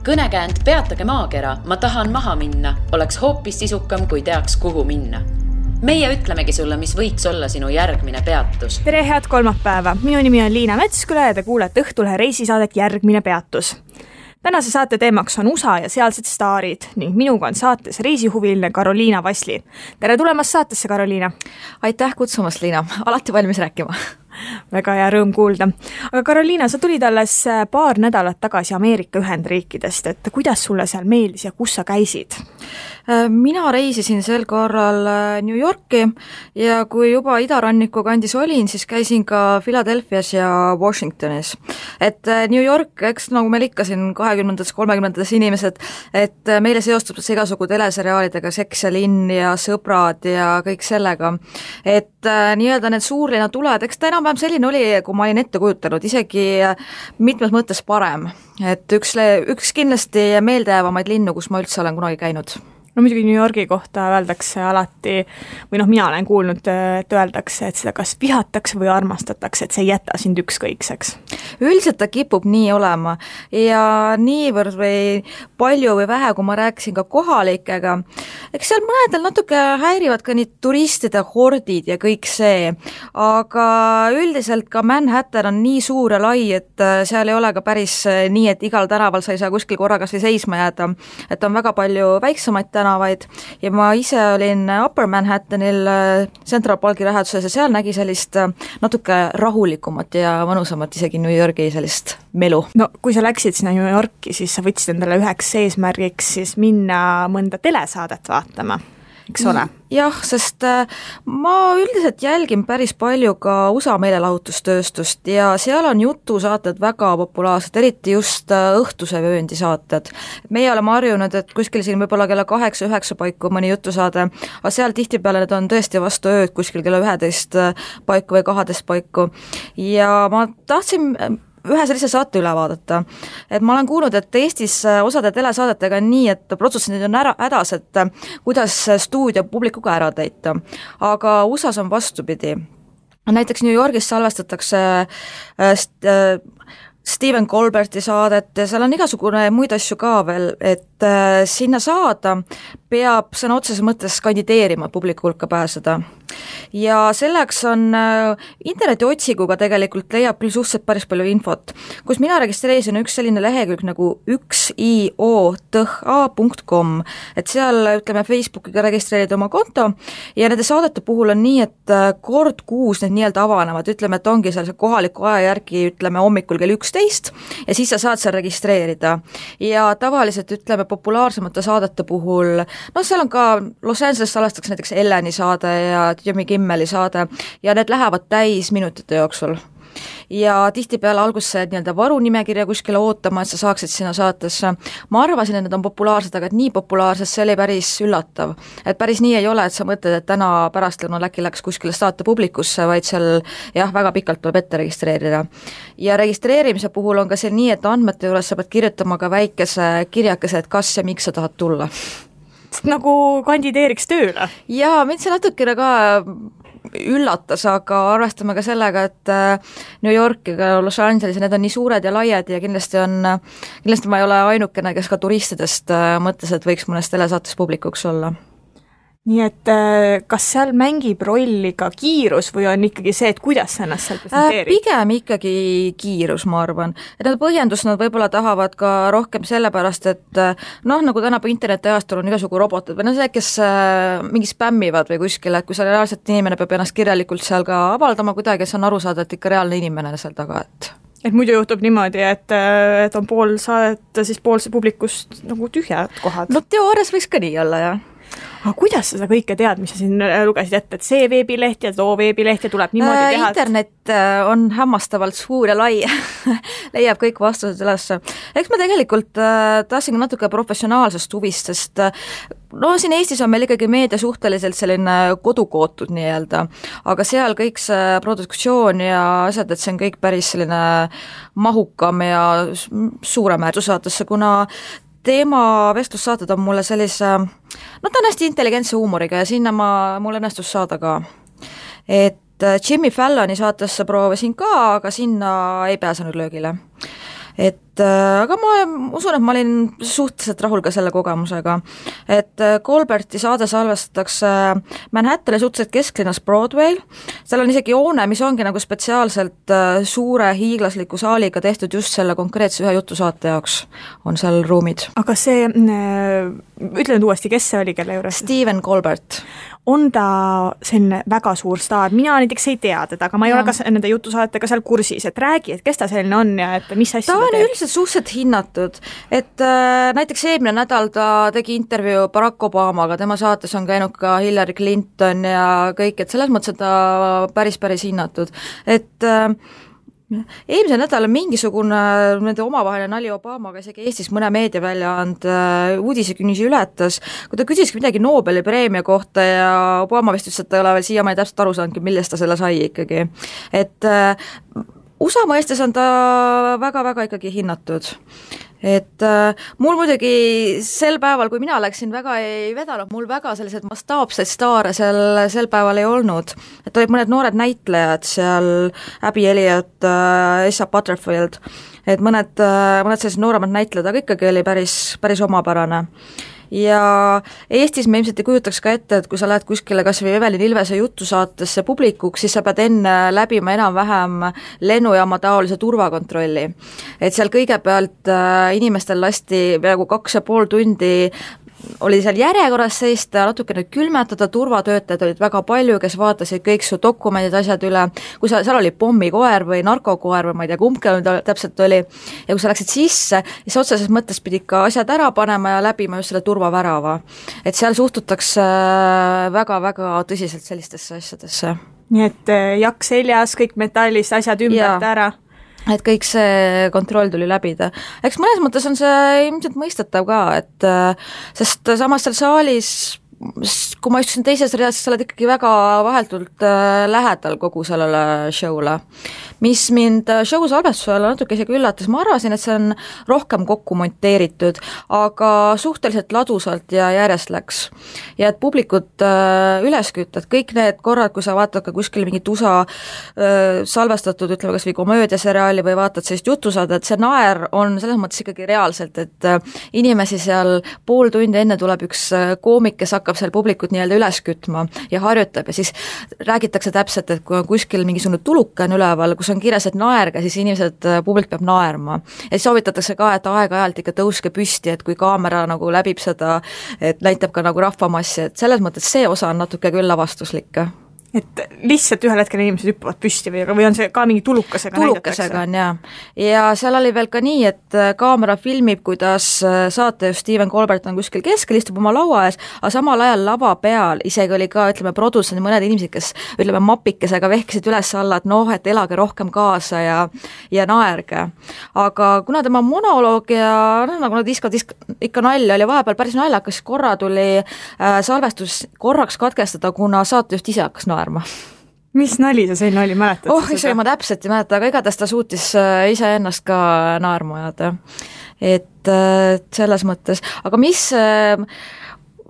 Kõnekäänd Peatage maakera, ma tahan maha minna, oleks hoopis sisukam, kui teaks, kuhu minna. Meie ütlemegi sulle, mis võiks olla sinu järgmine peatus. Tere, head kolmapäeva! Minu nimi on Liina Metsküla ja te kuulete Õhtulehe reisisaadet Järgmine peatus. Tänase saate teemaks on USA ja sealsed staarid ning minuga on saates reisihuviline Karoliina Vasli. Tere tulemast saatesse, Karoliina! Aitäh kutsumast, Liina! Alati valmis rääkima. Väga hea rõõm kuulda. Aga Karoliina, sa tulid alles paar nädalat tagasi Ameerika Ühendriikidest, et kuidas sulle seal meeldis ja kus sa käisid? Mina reisisin sel korral New Yorki ja kui juba idaranniku kandis olin, siis käisin ka Philadelphias ja Washingtonis. Et New York, eks nagu meil ikka siin 20. 30. inimesed, et meile seostub see igasugu teleseriaalidega, Seks ja linn ja Sõbrad ja kõik sellega. Et nii-öelda need suurlinna tuled, eks ta enam-vähem selline oli, kui ma olin ette kujutanud, isegi mitmes mõttes parem. Et üks kindlasti meeldejäävamaid linnu, kus ma üldse olen kunagi käinud. No muidugi New Yorgi kohta öeldakse alati, või mina olen kuulnud, et öeldakse, et seda kas vihatakse või armastatakse, et see ei jäta sind ükskõikseks. Üldiselt ta kipub nii olema ja niivõrd või palju või vähe, kui ma rääkisin ka kohalikega, eks seal mõnedel natuke häirivad ka nii turistide hordid ja kõik see, aga üldiselt ka Manhattan on nii suur ja lai, et seal ei ole ka päris nii, et igal tänaval sa ei saa kuskil korraga seisma jääda, et on väga palju väiksemaid tänavaid ja ma ise olin Upper Manhattanil Central Parki läheduses ja seal nägi sellist natuke rahulikumat ja mõnusamat isegi New Yorgi sellist melu. No kui sa läksid sinna New Yorki, siis sa võtsid endale üheks eesmärgiks siis minna mõnda telesaadet vaatama, eks ole? Jah, sest ma üldiselt jälgin päris palju ka USA meelelahutustööstust ja seal on jutusaated väga populaarsed, eriti just õhtuse vööndi saated. Meie oleme harjunud, et kuskil siin võib-olla kella 8-9 paiku mõni jutusaade, aga seal tihtipeale need on tõesti vastu ööd kuskil kella 11 paiku või 12 paiku ja ma tahtsin ühe sellise saate üle vaadata. Et ma olen kuulnud, et Eestis osade telesaadetega on nii, et protsessid on hädas, et kuidas stuudio publikuga ära täita. Aga USAs on vastupidi. Näiteks New Yorgis salvestatakse Stephen Colberti saadet ja seal on igasugune muid asju ka veel, et sinna saada peab sõna otseses mõttes kandideerima publiku hulka pääseda. Ja selleks on interneti otsiguga tegelikult leiab küll suhteliselt päris palju infot. Kus mina registreerisin üks selline lehekülg nagu 1iotha.com, et seal ütleme Facebookiga registreerida oma konto ja nende saadete puhul on nii, et kord kuus need nii-öelda avanevad, ütleme, et ongi seal kohaliku aja järgi, ütleme hommikul kell 11 ja siis sa saad seal registreerida ja tavaliselt ütleme populaarsemate saadete puhul, no seal on ka Los Angeles salvestatakse näiteks Elleni saade ja Jimmy Kimmeli saade ja need lähevad täis minutite jooksul. Ja tihtipeale alguses nii-öelda varunimekirja kuskile ootama, et sa saaksid sinna saatesse. Ma arvasin, et need on populaarsed, aga et nii populaarsed, see oli päris üllatav. Et päris nii ei ole, et sa mõtled, et täna pärastlõunal äkki läks kuskile saate publikusse, vaid seal jah, väga pikalt tuleb ette registreerida. Ja registreerimise puhul on ka see nii, et andmete juures sa pead kirjutama ka väikese kirjakese, et kas ja miks sa tahad tulla. Nagu kandideeriks tööle? Jaa, mind see natukene ka üllatas, aga arvestame ka sellega, et New York ja Los Angeles, need on nii suured ja laiad ja kindlasti ma ei ole ainukene, kes ka turistidest mõtles, et võiks mõnes telesaates publikuks olla. Nii et kas seal mängib rolli ka kiirus või on ikkagi see, et kuidas sa ennast seal presenteerid? Pigem ikkagi kiirus, ma arvan. Et nad põhjendus nad võib-olla tahavad ka rohkem sellepärast, et nagu tänapäeva internetiajastul on igasugu robotid või see, kes mingi spämmivad või kuskile, et kui seal reaalselt inimene peab ennast kirjalikult seal ka avaldama kuidagi, et see on aru saada, et ikka reaalne inimene seal taga, et muidu juhtub niimoodi, et on pool saadet, siis pool publikust nagu tühjad kohad. No teoorias võiks ka nii olla, jah. Aga kuidas sa seda kõike tead, mis sa siin lugesid ette, et see veebileht ja too veebileht ja tuleb niimoodi teha? Internet on hämmastavalt suur ja lai, leiab kõik vastused üles. Eks ma tegelikult tahtsin natuke professionaalsest huvist, sest siin Eestis on meil ikkagi meedia suhteliselt selline kodukootud nii-öelda, aga seal kõik see produktsioon ja asjad, et see on kõik päris selline mahukam ja suurem äärdussaatesse, kuna teema vestlussaated on mulle sellise, ta on hästi intelligentse huumoriga ja sinna mul õnnestus saada ka. Et Jimmy Falloni saatesse proovisin ka, aga sinna ei pääsenud löögile. Et aga ma usun, et ma olin suhteliselt rahul ka selle kogemusega, et Colberti saade salvestatakse Manhattani suhteliselt kesklinnas Broadway'l, seal on isegi hoone, mis ongi nagu spetsiaalselt suure hiiglasliku saaliga tehtud just selle konkreetse ühe jutusaate jaoks, on seal ruumid. aga see, ütle nüüd uuesti, kes see oli, kelle juures? Stephen Colbert. On ta selline väga suur staar, mina näiteks ei tea teda, aga ma ei ole ka nende jutusaatega seal kursis, et räägi, et kes ta selline on ja et mis asja ta on üldiselt suhteliselt hinnatud, et näiteks eelmine nädal ta tegi intervjuu Barack Obamaga, tema saates on käinud ka Hillary Clinton ja kõik, et selles mõttes on ta päris hinnatud, et eelmisel nädalal mingisugune nende omavaheline nali Obamaga isegi Eestis mõne meediaväljaand uudisekünnisi ületas, kui ta küsiski midagi Nobeli preemia kohta ja Obama vist ütles, et ta ei ole veel siiamaani täpselt aru saanudki, millest ta selle sai ikkagi. Et USA mõistes on ta väga ikkagi hinnatud. Et mul muidugi sel päeval, kui mina läksin, väga ei vedanud, mul väga sellised mastaapseid staare sel päeval ei olnud, et olid mõned noored näitlejad seal, Abby Elliot, Asa Butterfield, et mõned sellised nooremad näitlejad, aga ikkagi oli päris omapärane. Ja Eestis me ilmselt ei kujutaks ka ette, et kui sa lähed kuskile kas või Evelin Ilvese jutusaatesse publikuks, siis sa pead enne läbima enam-vähem lennujaama taolise turvakontrolli. Et seal kõigepealt inimestel lasti peaaegu 2,5 tundi oli seal järjekorras seista, natukene külmetada, turvatöötajad olid väga palju, kes vaatasid kõik su dokumendid, asjad üle, kui seal oli pommikoer või narkokoer või ma ei tea, kumbki täpselt oli, ja kui sa läksid sisse, siis otseses mõttes pidid ka asjad ära panema ja läbima just selle turvavärava. Et seal suhtutakse väga tõsiselt sellistesse asjadesse. Nii et jakk seljas, kõik metallist, asjad ümbert ära. Et kõik see kontroll tuli läbida. Eks mõnes mõttes on see ilmselt mõistetav ka, et sest samas seal saalis, kui ma istusin teises reas, sa oled ikkagi väga vaheltult lähedal kogu sellele show'le. Mis mind show salvestusel natuke isegi üllatas, ma arvasin, et see on rohkem kokku monteeritud, aga suhteliselt ladusalt ja järjest läks. Ja et publikut üles kütta, et kõik need korrad, kui sa vaatad ka kuskil mingit USA salvestatud, ütleme kas või komöödiaseriaali või vaatad sellist jutusaadet, et see naer on selles mõttes ikkagi reaalselt, et inimesi seal pool tundi enne tuleb üks koomik, kes hakkab seal publikut nii-öelda üles kütma ja harjutab ja siis räägitakse täpselt, et kui on kuskil mingisugune tuluke on üleval, kus on kirjas, et naerge, siis inimesed, publik peab naerma. Ja siis soovitatakse ka, et aeg-ajalt ikka tõuske püsti, et kui kaamera nagu läbib seda, et näitab ka nagu rahvamassi, et selles mõttes see osa on natuke küll lavastuslik. Et lihtsalt ühel hetkel inimesed hüppavad püsti või on see ka mingi tulukasega näidatakse? On jah. Ja seal oli veel ka nii, et kaamera filmib, kuidas saate Stephen Colbert on kuskil keskel, istub oma laua ees, aga samal ajal lava peal isegi oli ka, ütleme, produtsendid mõned inimesed, kes, ütleme, mapikesega vehkisid üles alla, et noh, et elage rohkem kaasa ja naerge. Aga kuna tema monoloog ja nagu nad ikka nalja oli vahepeal päris naljakas, korra tuli salvestus korraks katkestada, kuna saatejuht ise hakkas naerma. Mis nali see selline oli, mäletad? Ise ma täpselt ei mäleta, aga igatahes ta suutis ise ennast ka naerma ajada. Et selles mõttes, aga mis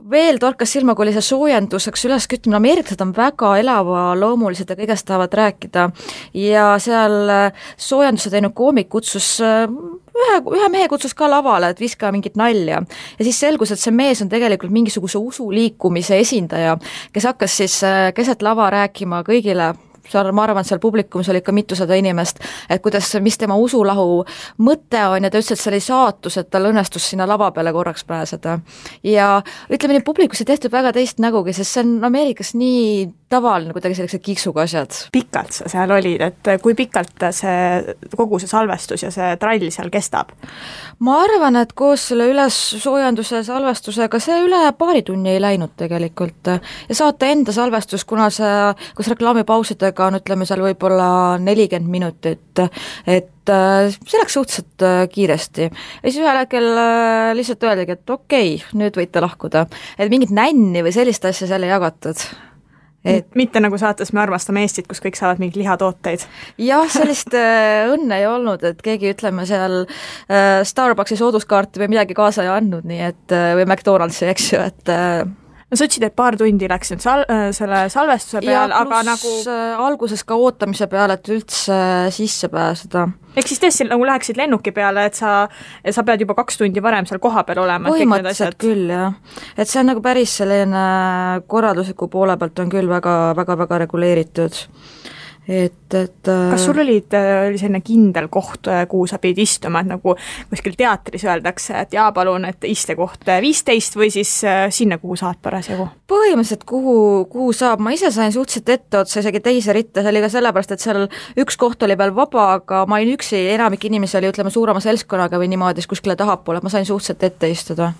veel torkas silma, kui oli see soojenduseks üleskütmine, ameeriklased on väga elavloomulised ja kõigest tahavad rääkida ja seal soojenduse teinud koomik kutsus ühe mehe kutsus ka lavale, et viska mingit nalja ja siis selgus, et see mees on tegelikult mingisuguse usuliikumise esindaja, kes hakkas siis keset lava rääkima kõigile, seal, ma arvan, et seal publikumis oli ikka mitusada inimest, et kuidas, mis tema usulahu mõte on ja ta ütles, et see oli saatus, et tal õnnestus sinna lava peale korraks pääseda. Ja ütleme nii, publikus ei tehtud väga teist nägugi, sest see on Ameerikas nii tavaline kuidagi sellised kiksuga asjad. Pikalt sa seal olid, et kui pikalt kogu see salvestus ja see trall seal kestab? Ma arvan, et koos selle ülessoojenduse salvestusega see üle paari tunni ei läinud tegelikult ja saate enda salvestus, kuna see, kus reklaamipausidega on, ütleme seal võib-olla 40 minutit, et see läks suhteliselt kiiresti. Ja siis ühel hetkel lihtsalt öeldagi, et okei, nüüd võite lahkuda. Et mingit nänni või sellist asja seal ei jagatud. Mitte nagu saates Me armastame Eestit, kus kõik saavad mingid lihatooteid. Jah, sellist õnne ei olnud, et keegi, ütleme, seal Starbucksi sooduskaarti või midagi kaasa ei andnud, nii et, või McDonaldsi, eks ju, et no sa ütlesid, et paar tundi läks nüüd selle salvestuse peal, aga nagu alguses ka ootamise peale, et üldse sisse pääseda. Ehk siis tõesti nagu läheksid lennuki peale, et sa pead juba 2 tundi varem seal koha peal olema. Põhimõtteliselt küll, jah. Et see on nagu päris selline korraldusliku poole pealt on küll väga reguleeritud. Kas sul oli selline kindel koht, kuhu sa pidid istuma, et nagu kuskil teatris öeldakse, et jaa, palun, et istekoht 15 või siis sinna, kuhu saad parasjagu? Põhimõtteliselt, kuhu saab, ma ise sain suhteliselt etteotsa isegi teise ritta, see oli ka sellepärast, et seal üks koht oli veel vaba, aga ma olin üksi, enamik inimesi oli, ütleme, suurema seltskonnaga või niimoodi, siis kuskile tahapoole, et ma sain suhteliselt ette istuda.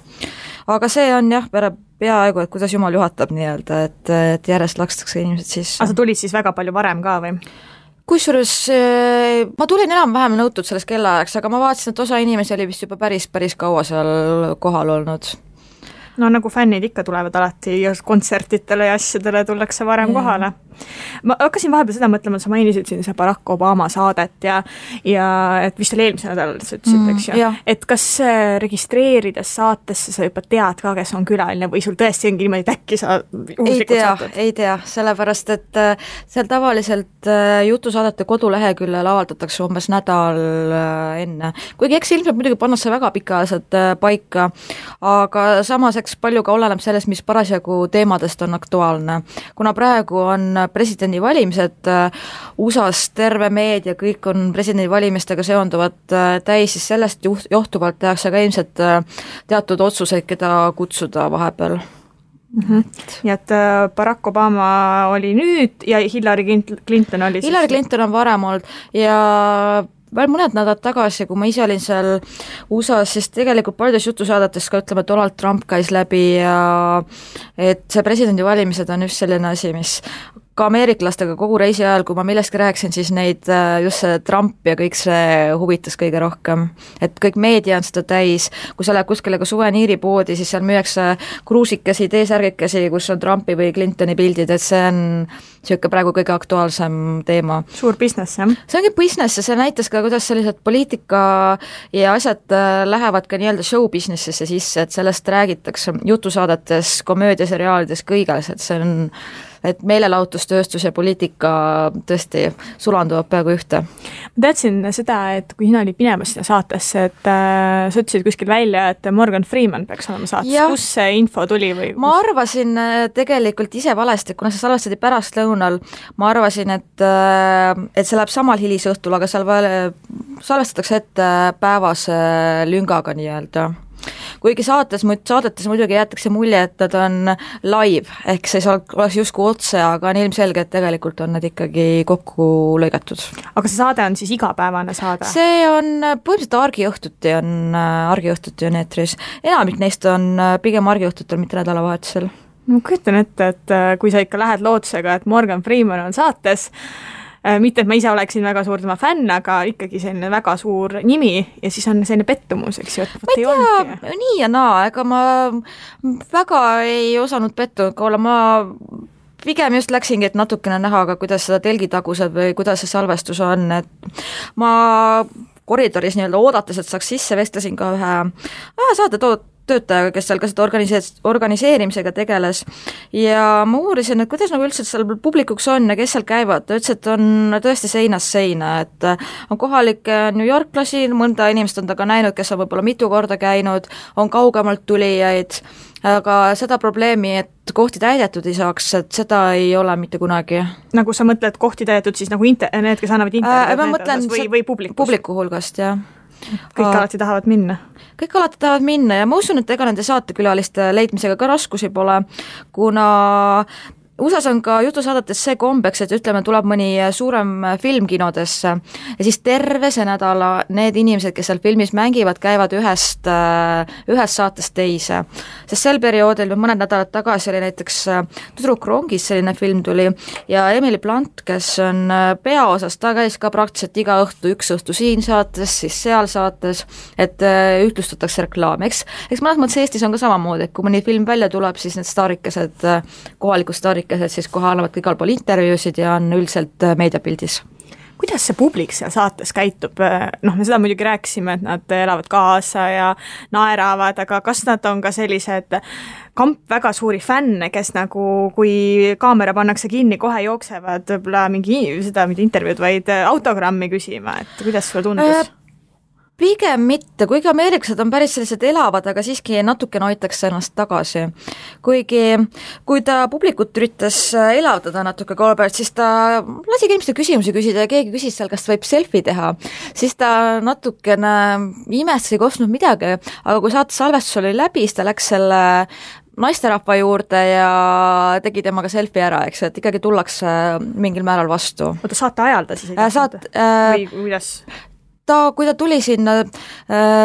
Aga see on jah, peaaegu, et kuidas jumal juhatab nii-öelda, et järjest lakstakse inimesed sisse. Aga sa tulid siis väga palju varem ka või? Kusjuures ma tulin enam-vähem nõutud selles kellaajaks, aga ma vaatasin, et osa inimesi oli vist juba päris kaua seal kohal olnud. No nagu fännid ikka tulevad alati kontsertitele ja asjadele tullakse varem kohale. Ma hakkasin vahepeal seda mõtlema, sa mainisid siin see Barack Obama saadet ja et vist oli eelmise nädalal, sa ütlesid, eks ju. Et kas registreerides saatesse sa juba tead ka, kes on külaline või sul tõesti ongi niimoodi, et äkki sa ei tea, sellepärast, et seal tavaliselt jutusaadete koduleheküljel avaldatakse umbes nädal enne. Kuigi eks ilmselt muidugi pannakse väga pikaajaliselt paika, aga samas eks palju ka oleneb sellest, mis parasjagu teemadest on aktuaalne. Kuna praegu on presidendivalimised, USA-s terve meedia, kõik on presidendivalimistega seonduvad täis, siis sellest johtuvalt tehakse ka ilmselt teatud otsuseid, keda kutsuda vahepeal. Nii et Barack Obama oli nüüd ja Hillary Clinton oli siis... Hillary Clinton on varem olnud ja veel mõned nädalad tagasi, kui ma ise olin seal USA-s, siis tegelikult paljudes jutusaadetes ka ütleme, et Donald Trump käis läbi ja et see presidendivalimised on just selline asi, mis ka ameeriklastega kogu reisi ajal, kui ma millestki rääksin, siis neid just see Trump ja kõik see huvitas kõige rohkem. Et kõik meedia on seda täis, kui sa lähed kuskile ka suveniiripoodi, siis seal müüakse kruusikesi, teesärgikesi, kus on Trumpi või Clintoni pildid, et see on niisugune praegu kõige aktuaalsem teema. Suur business, jah? See ongi business ja see näitas ka, kuidas sellised poliitika ja asjad lähevad ka nii-öelda show businessisse sisse, et sellest räägitakse jutusaadetes, komöödiaseriaalides, kõiges, et see on et meelelahutustööstus ja poliitika tõesti sulanduvad peaaegu ühte. Ma teadsin seda, et kui sina olid minemas sinna saatesse, et sa ütlesid kuskil välja, et Morgan Freeman peaks olema saates. Kus see info tuli? Või ma arvasin tegelikult ise valesti, kuna see salvestati pärast lõunal, ma arvasin, et see läheb samal hilisõhtul, aga seal salvestatakse ette päevase lüngaga nii-öelda. Kuigi saadetes muidugi jäetakse mulje, et nad on live, ehk see oleks justkui otse, aga on ilmselge, et tegelikult on nad ikkagi kokku lõigatud. Aga see saade on siis igapäevane saade? See on põhimõtteliselt argiõhtuti on eetris. Enamik neist on pigem argiõhtutel, mitte nädalavahetusel. Ma kujutan ette, et kui sa ikka lähed lootusega, et Morgan Freeman on saates, mitte, et ma ise oleksin väga suur tema fänn, aga ikkagi selline väga suur nimi ja siis on selline pettumus, eks ju, et ma ei tea, nii ja naa, ega ma väga ei osanud pettunud olla, ma pigem just läksingi, et natukene näha, aga kuidas seda telgitagused või kuidas see salvestus on, et ma koridoris nii-öelda oodates, et saaks sisse, vestlesin ka ühe saate töötajaga, kes seal ka seda organiseerimisega tegeles ja ma uurisin, et kuidas nagu üldse seal publikuks on ja kes seal käivad, ta ütles, et on tõesti seinast seina, et on kohalikke New Yorklasi, mõnda inimest on ta ka näinud, kes on võib-olla mitu korda käinud, on kaugemalt tulijaid, aga seda probleemi, et kohti täidetud ei saaks, et seda ei ole mitte kunagi. Nagu sa mõtled kohti täidetud, siis nagu need, kes annavad internet või publiku hulgast, jah. Kõik alati tahavad minna. Kõik alati tahavad minna ja ma usun, et ega nende saatekülaliste leidmisega ka raskusi pole, kuna USA-s on ka jutusaadetes see kombeks, et ütleme, tuleb mõni suurem film kinodesse ja siis terve see nädala need inimesed, kes seal filmis mängivad, käivad ühest saatest teise. Sest sel perioodil mõned nädalad tagasi oli näiteks Tüdruk rongis selline film tuli ja Emily Blunt, kes on peaosas, ta käis ka praktiliselt iga õhtu, üks õhtu siin saates, siis seal saates, et ühtlustatakse reklaam. Eks mõnes mõttes Eestis on ka samamoodi, et kui mõni film välja tuleb, siis need staarikesed, kohalikud staarikesed siis kohe annavad igal pool intervjuusid ja on üldiselt meediapildis. kuidas see publik seal saates käitub? Noh, me seda muidugi rääkisime, et nad elavad kaasa ja naeravad, aga kas nad on ka sellised kamp väga suuri fänne, kes nagu, kui kaamera pannakse kinni, kohe jooksevad võib-olla mingi intervjuud, vaid autogrammi küsima, et kuidas sulle tundus? Pigem mitte, kuigi ameeriklased on päris sellised elavad, aga siiski natukene hoitakse ennast tagasi. Kuigi, kui ta publikut üritas elavdada natuke Colbert, siis ta lasi inimeste küsimusi küsida ja keegi küsis seal, kas võib selfie teha. Siis ta natukene imestas, ei kostnud midagi, aga kui saate salvestus oli läbi, siis ta läks selle naisterahva juurde ja tegi temaga selfie ära, eks, et ikkagi tullakse mingil määral vastu. Oota, saate ajal ta siis või kuidas? Kui ta tuli sinna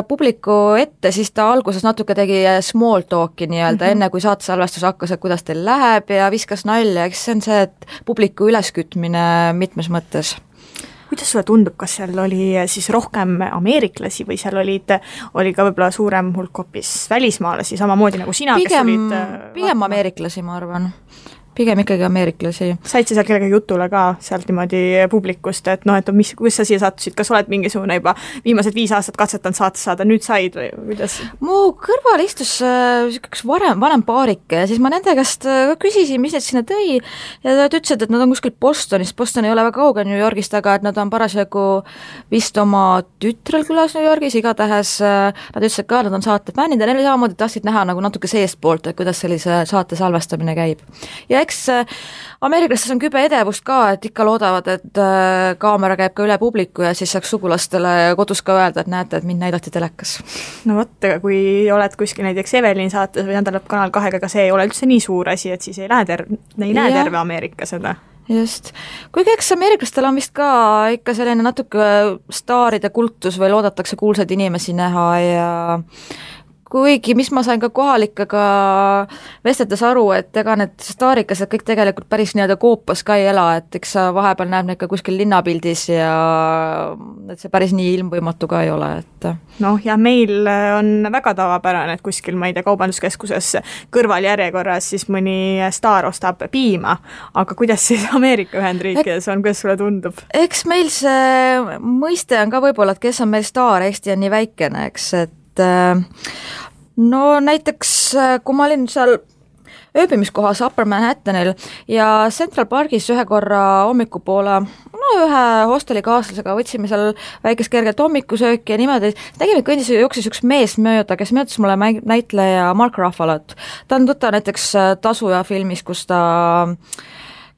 publiku ette, siis ta alguses natuke tegi small talk'i nii-öelda, enne kui saatesalvestus hakkas, et kuidas teil läheb ja viskas nalja, eks see on see, et publiku üleskütmine mitmes mõttes. Kuidas sulle tundub, kas seal oli siis rohkem ameeriklasi või seal oli ka võib-olla suurem hulk hoopis välismaalasi, samamoodi nagu sina, kes olid pigem ameeriklasi, ma arvan. Pigem ikkagi ameeriklasi. Said sa seal kellega jutule ka sealt niimoodi publikust, et noh, et kus sa siia sattusid, kas oled mingisugune juba viimased 5 aastat katsetanud saates saada, nüüd said või kuidas? Mu kõrval istus üks vanem paarike ja siis ma nende käest küsisin, mis need sinna tõi ja nad ütlesid, et nad on kuskil Bostonist, Boston ei ole väga kauge New Yorgist, aga et nad on parasjagu vist oma tütrel külas New Yorgis, igatahes nad ütlesid ka, nad on saate fännid ja neil samamoodi tahtsid näha nagu natuke seestpoolt, et kuidas sellise saate salvestamine käib. Ja eks ameeriklastes on kübe edevust ka, et ikka loodavad, et kaamera käib ka üle publiku ja siis saaks sugulastele kodus ka öelda, et näete, et mind näidati telekas. No vot, aga kui oled kuskil näiteks Evelin saates või tähendab Kanal 2, aga see ei ole üldse nii suur asi, et siis ei näe terve Ameerika seda. Just. Kuigi eks ameeriklastel on vist ka ikka selline natuke staaride kultus või loodetakse kuulsaid inimesi näha ja kuigi, mis ma sain ka kohalikega vestetes aru, et ega need staarikased kõik tegelikult päris nii-öelda koopas ka ei ela, et eks sa vahepeal näeb neid ka kuskil linnapildis ja et see päris nii ilmvõimatu ka ei ole, et noh, ja meil on väga tavapärane, et kuskil, ma ei tea, kaubanduskeskuses kõrvaljärjekorras siis mõni staar ostab piima, aga kuidas siis Ameerika Ühendriikides on, kuidas sulle tundub? Eks meil see mõiste on ka võib-olla, et kes on meil staar, Eesti on nii väikene, eks, et no näiteks, kui ma olin seal ööbimiskohas Upper Manhattanil ja Central Parkis ühe korra hommikupoole, ühe hostelikaaslasega võtsime seal väikest kerget hommikusööki ja niimoodi, nägime, et kõndis jooksis üks mees mööda, kes möödas mulle näitleja Mark Ruffalot. Ta on tuttav näiteks Tasuja filmis, kus ta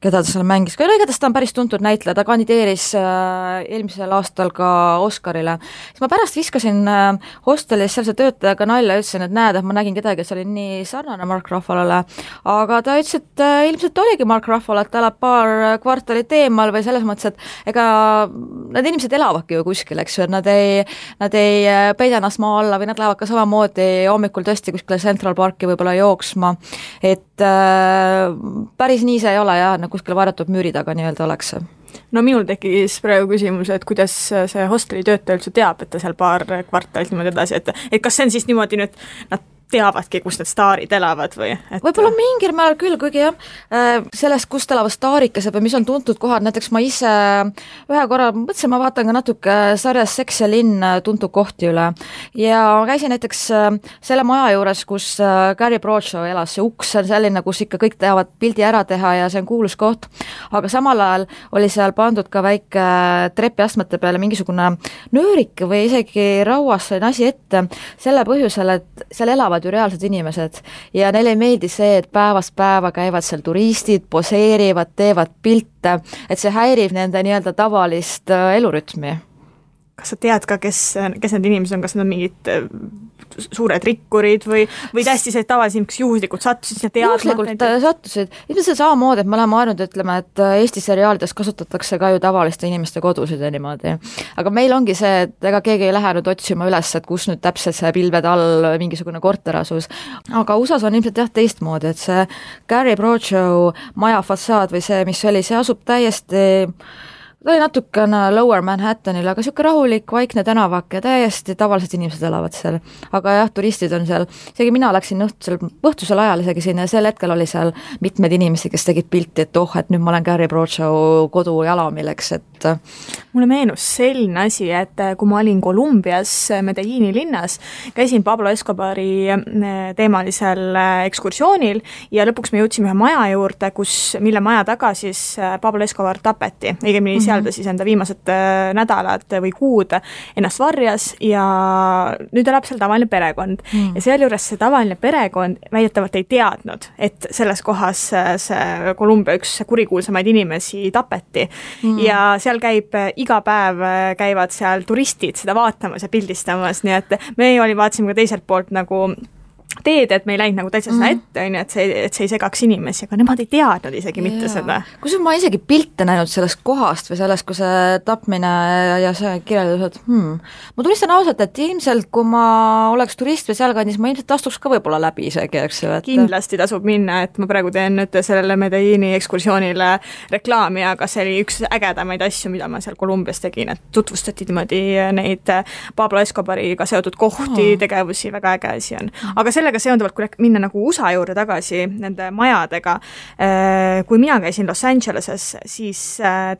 keda ta seal mängis, aga igatahes ta on päris tuntud näitleja, ta kandideeris eelmisel aastal ka Oscarile. Siis ma pärast viskasin hostelis sealse töötajaga nalja ja ütlesin, et näed, et ma nägin kedagi, et see oli nii sarnane Mark Ruffalole, aga ta ütles, et ilmselt oligi Mark Ruffalo, et ta elab paar kvartalit eemal või selles mõttes, et ega need inimesed elavadki ju kuskil, eks ju, et nad ei peida ennast maa alla või nad lähevad ka samamoodi hommikul tõesti kuskile Central Parki võib-olla jooksma, et päris nii see ei ole jah, kuskil varjatud müüri taga nii-öelda oleks. No minul tekkis praegu küsimus, et kuidas see hosteli töötaja üldse teab, et ta seal paar kvartalit niimoodi edasi, et kas see on siis niimoodi nüüd, nad teavadki, kus need staarid elavad või? Võib-olla mingil määral küll, kuigi jah, sellest, kust elavad staarikesed või mis on tuntud kohad, näiteks ma ise ühe korra mõtlesin, ma vaatan ka natuke sarjas Seks ja linn tuntud kohti üle ja käisin näiteks selle maja juures, kus Gary Bradshaw elas, see uks on selline, kus ikka kõik teavad pildi ära teha ja see on kuulus koht, aga samal ajal oli seal pandud ka väike trepiastmete peale mingisugune nöörik või isegi rauas selline asi ette, selle põhjusel, et seal elavad ju reaalsed inimesed ja neile ei meeldi see, et päevast päeva käivad seal turistid, poseerivad, teevad pilte, et see häirib nende nii-öelda tavalist elurütmi. Kas sa tead ka, kes need inimesed on, kas need on mingid suured rikkurid või täiesti see tavaliselt juhuslikult sattusid ja teadma? Juhuslikult sattusid. Ilmselt samamoodi, et me oleme ainult ütleme, et Eesti seriaalides kasutatakse ka ju tavaliste inimeste kodusid ja niimoodi. Aga meil ongi see, et ega keegi ei lähe nüüd otsima üles, et kus nüüd täpselt see pilved all mingisugune korter asus. Aga USAs on ilmselt jah teistmoodi, et see Gary Bradshaw maja fassaad või see, mis oli, see asub täiesti ta oli natukene Lower Manhattanil, aga niisugune rahulik, vaikne tänavak ja täiesti tavalised inimesed elavad seal. Aga jah, turistid on seal, isegi mina läksin õhtusel ajal isegi sinna ja sel hetkel oli seal mitmed inimesi, kes tegid pilti, et et nüüd ma olen Gary Bradshaw kodujalamil, eks, et mulle meenus selline asi, et kui ma olin Kolumbias Medellini linnas, käisin Pablo Escobari teemalisel ekskursioonil ja lõpuks me jõudsime ühe maja juurde, mille maja taga siis Pablo Escobar tapeti, õigemini seal ta siis enda viimased nädalad või kuud ennast varjas ja nüüd elab seal tavaline perekond. Ja sealjuures see tavaline perekond väidetavalt ei teadnud, et selles kohas see Kolumbia üks kurikuulsamaid inimesi tapeti. Ja seal iga päev käivad seal turistid seda vaatamas ja pildistamas, nii et me vaatasime ka teiselt poolt nagu teed, et me ei läinud nagu täitsa seda ette, et see ei segaks inimesi, aga nemad ei teadnud isegi mitte seda. Kus ma isegi pilte näinud sellest kohast või sellest, kui see tapmine ja see kirjeldused, ma tunnistan ausalt, et ilmselt kui ma oleks turist või sealkandis, ma ilmselt astuks ka võib-olla läbi isegi, eks ju. Kindlasti tasub minna, et ma praegu teen nüüd sellele Medellini ekskursioonile reklaami, aga see oli üks ägedamaid asju, mida ma seal Kolumbias tegin, et tutvustati niimoodi neid Pablo Escobariga seotud kohti, tegevusi, väga äge asi on. Aga sellega seonduvalt, kui minna nagu USA juurde tagasi nende majadega, kui mina käisin Los Angeleses, siis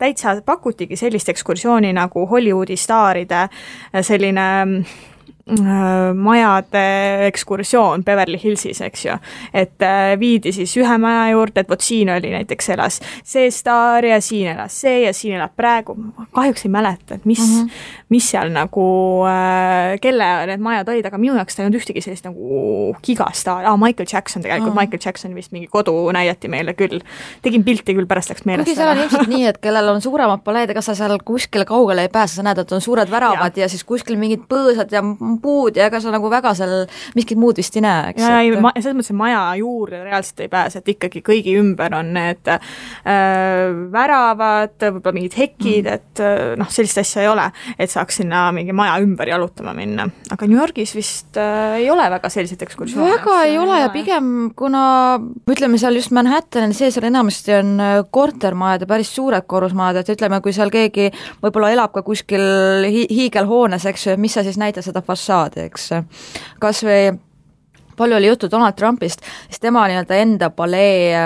täitsa pakutigi sellist ekskursiooni nagu Hollywoodi staaride selline majade ekskursioon Beverly Hillsis, eks ju. Et viidi siis ühe maja juurde, et vot siin oli näiteks elas see staar ja siin elas see ja siin elab praegu. Kahjuks ei mäleta, et mis seal nagu, kelle need majad olid, aga minu jaoks ta ei olnud ühtegi sellist nagu gigastaar. Michael Jackson tegelikult, Michael Jackson vist mingi kodu näidati meile küll. Tegin pilti küll, pärast läks meelest. Kuigi seal on ilmselt nii, et kellel on suuremad paleed, ega sa seal kuskile kaugele ei pääse, sa näed, et on suured väravad ja siis kuskil mingid põõsad ja puud ja ega sa nagu väga seal miskit muud vist ei näe, eks? Ja selles mõttes maja juurde reaalselt ei pääse, et ikkagi kõigi ümber on need väravad, võib-olla mingid hekid, et sellist asja ei ole, et saaks sinna mingi maja ümber jalutama minna. Aga New Yorgis vist ei ole väga selliseid ekskursioone. Väga ei ole ja pigem, kuna ütleme seal just Manhattanil sees enamasti on kortermajad ja päris suured korrusmajad, et ütleme, kui seal keegi võib-olla elab ka kuskil hiigelhoones, eks ju, mis sa siis näita seda fassaadi, eks. Kas või palju oli juttu Donald Trumpist, siis tema enda palee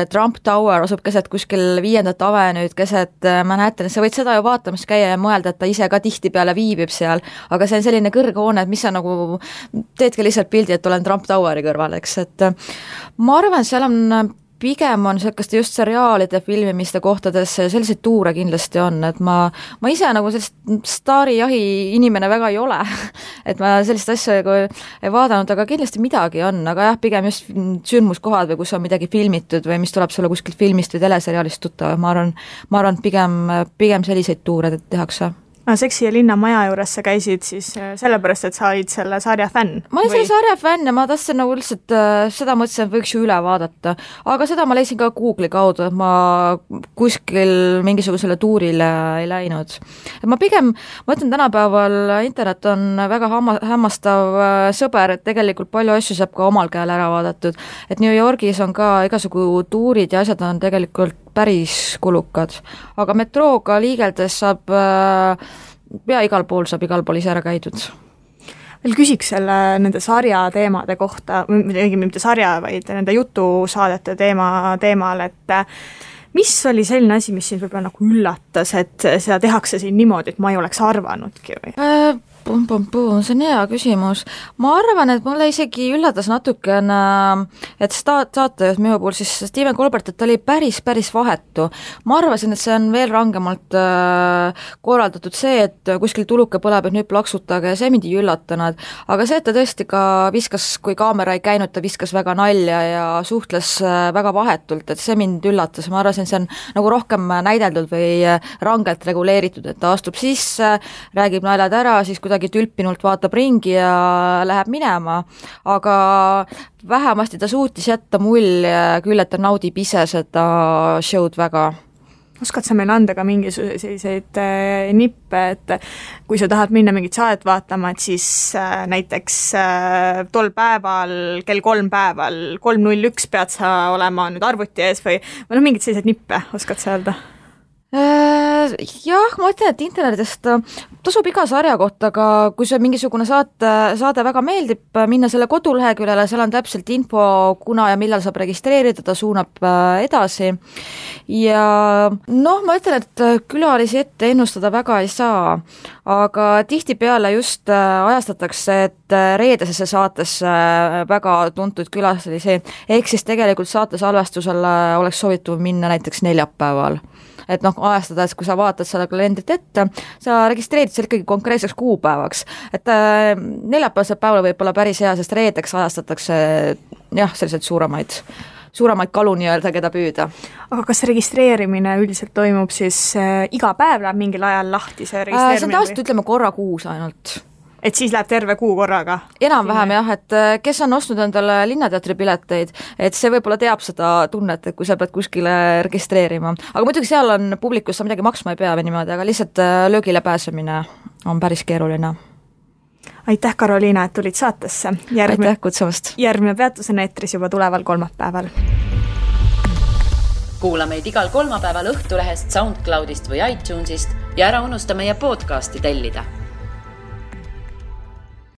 Trump Tower asub keset kuskil 5. avenüüd, keset Manhattanis, sa võid seda ju vaatamas käia ja mõelda, et ta ise ka tihtipeale viibib seal, aga see on selline kõrghoone, et mis sa nagu teedki lihtsalt pildi, et olen Trump Toweri kõrval, eks, et ma arvan, seal on pigem on selliste just seriaalide filmimiste kohtades selliseid tuure kindlasti on, et ma ise nagu sellist staarijahi inimene väga ei ole, et ma sellist asja ei vaadanud, aga kindlasti midagi on, aga jah, pigem just sündmuskohad või kus on midagi filmitud või mis tuleb sulle kuskilt filmist või teleseriaalist tuttav, ma arvan pigem selliseid tuure tehakse. Seksi ja linna maja juures sa käisid siis sellepärast, et sa olid selle sarja fänn? Ma olin selle sarja fänn ja ma tahtsin nagu lihtsalt seda mõtlesin, et võiks ju üle vaadata. Aga seda ma leidsin ka Google'i kaudu, et ma kuskil mingisugusele tuurile ei läinud. Et ma ütlen tänapäeval internet on väga hämmastav sõber, et tegelikult palju asju saab ka omal käel ära vaadatud. Et New Yorgis on ka igasugu tuurid ja asjad on tegelikult päris kulukad. Aga metrooga liigeldes saab igal pool ise ära käidud. Veel küsiks nende sarja teemade kohta, mitte sarja, vaid nende jutusaadete teemal, et mis oli selline asi, mis siin võib-olla nagu üllatas, et seda tehakse siin niimoodi, et ma ei oleks arvanudki või? See on hea küsimus. Ma arvan, et mulle isegi üllatas natukene, et saatejuht minu puhul siis Stephen Colbert, et ta oli päris vahetu. Ma arvasin, et see on veel rangemalt korraldatud see, et kuskil tuluke põleb, et nüüd plaksutage ja see mind ei üllatanud. Aga see, et ta tõesti ka viskas, kui kaamera ei käinud, ta viskas väga nalja ja suhtles väga vahetult, et see mind üllatas. Ma arvasin, see on nagu rohkem näideldud või rangelt reguleeritud, et ta astub sisse, räägib naljad ära, siis kuidagi tülpinult vaatab ringi ja läheb minema, aga vähemasti ta suutis jätta mulje küll, et ta naudib ise seda show'd väga. Oskad sa meile anda ka mingisuguseid nippe, et kui sa tahad minna mingit saadet vaatama, et siis näiteks tol päeval, kell 3:01 pead sa olema nüüd arvuti ees või mingid sellised nippe, oskad sa öelda? Jah, ma ütlen, et internetist tasub iga sarja kohta, aga kui see mingisugune saade väga meeldib, minna selle koduleheküljele, seal on täpselt info, kuna ja millal saab registreerida, ta suunab edasi. Ja ma ütlen, et külalisi ette ennustada väga ei saa, aga tihtipeale just ajastatakse, et reedesesse saatesse väga tuntud külalisi, ehk siis tegelikult saate salvestusele oleks soovitud minna näiteks neljapäeval. Et ajastades, kui sa vaatad selle kalendrit ette, sa registreerid seal ikkagi konkreetseks kuupäevaks. Et neljapäevasel päeval võib olla päris hea, sest reedeks ajastatakse selliseid suuremaid kalu nii-öelda, keda püüda. Aga kas registreerimine üldiselt toimub siis iga päev läheb mingil ajal lahti see registreerimine? See on tavaliselt ütleme korra kuus ainult. Et siis läheb terve kuu korraga? Enam-vähem jah, et kes on ostnud endale Linnateatri pileteid, et see võib-olla teab seda tunnet, et kui sa pead kuskile registreerima. Aga muidugi seal on publikus, sa midagi maksma ei pea või niimoodi, aga lihtsalt löögile pääsemine on päris keeruline. Aitäh, Karoliina, et tulid saatesse. Aitäh kutsumast. Järgmine peatus on eetris juba tuleval kolmapäeval. Kuula meid igal kolmapäeval Õhtulehest, SoundCloudist või iTunesist ja ära unusta meie podcasti tellida.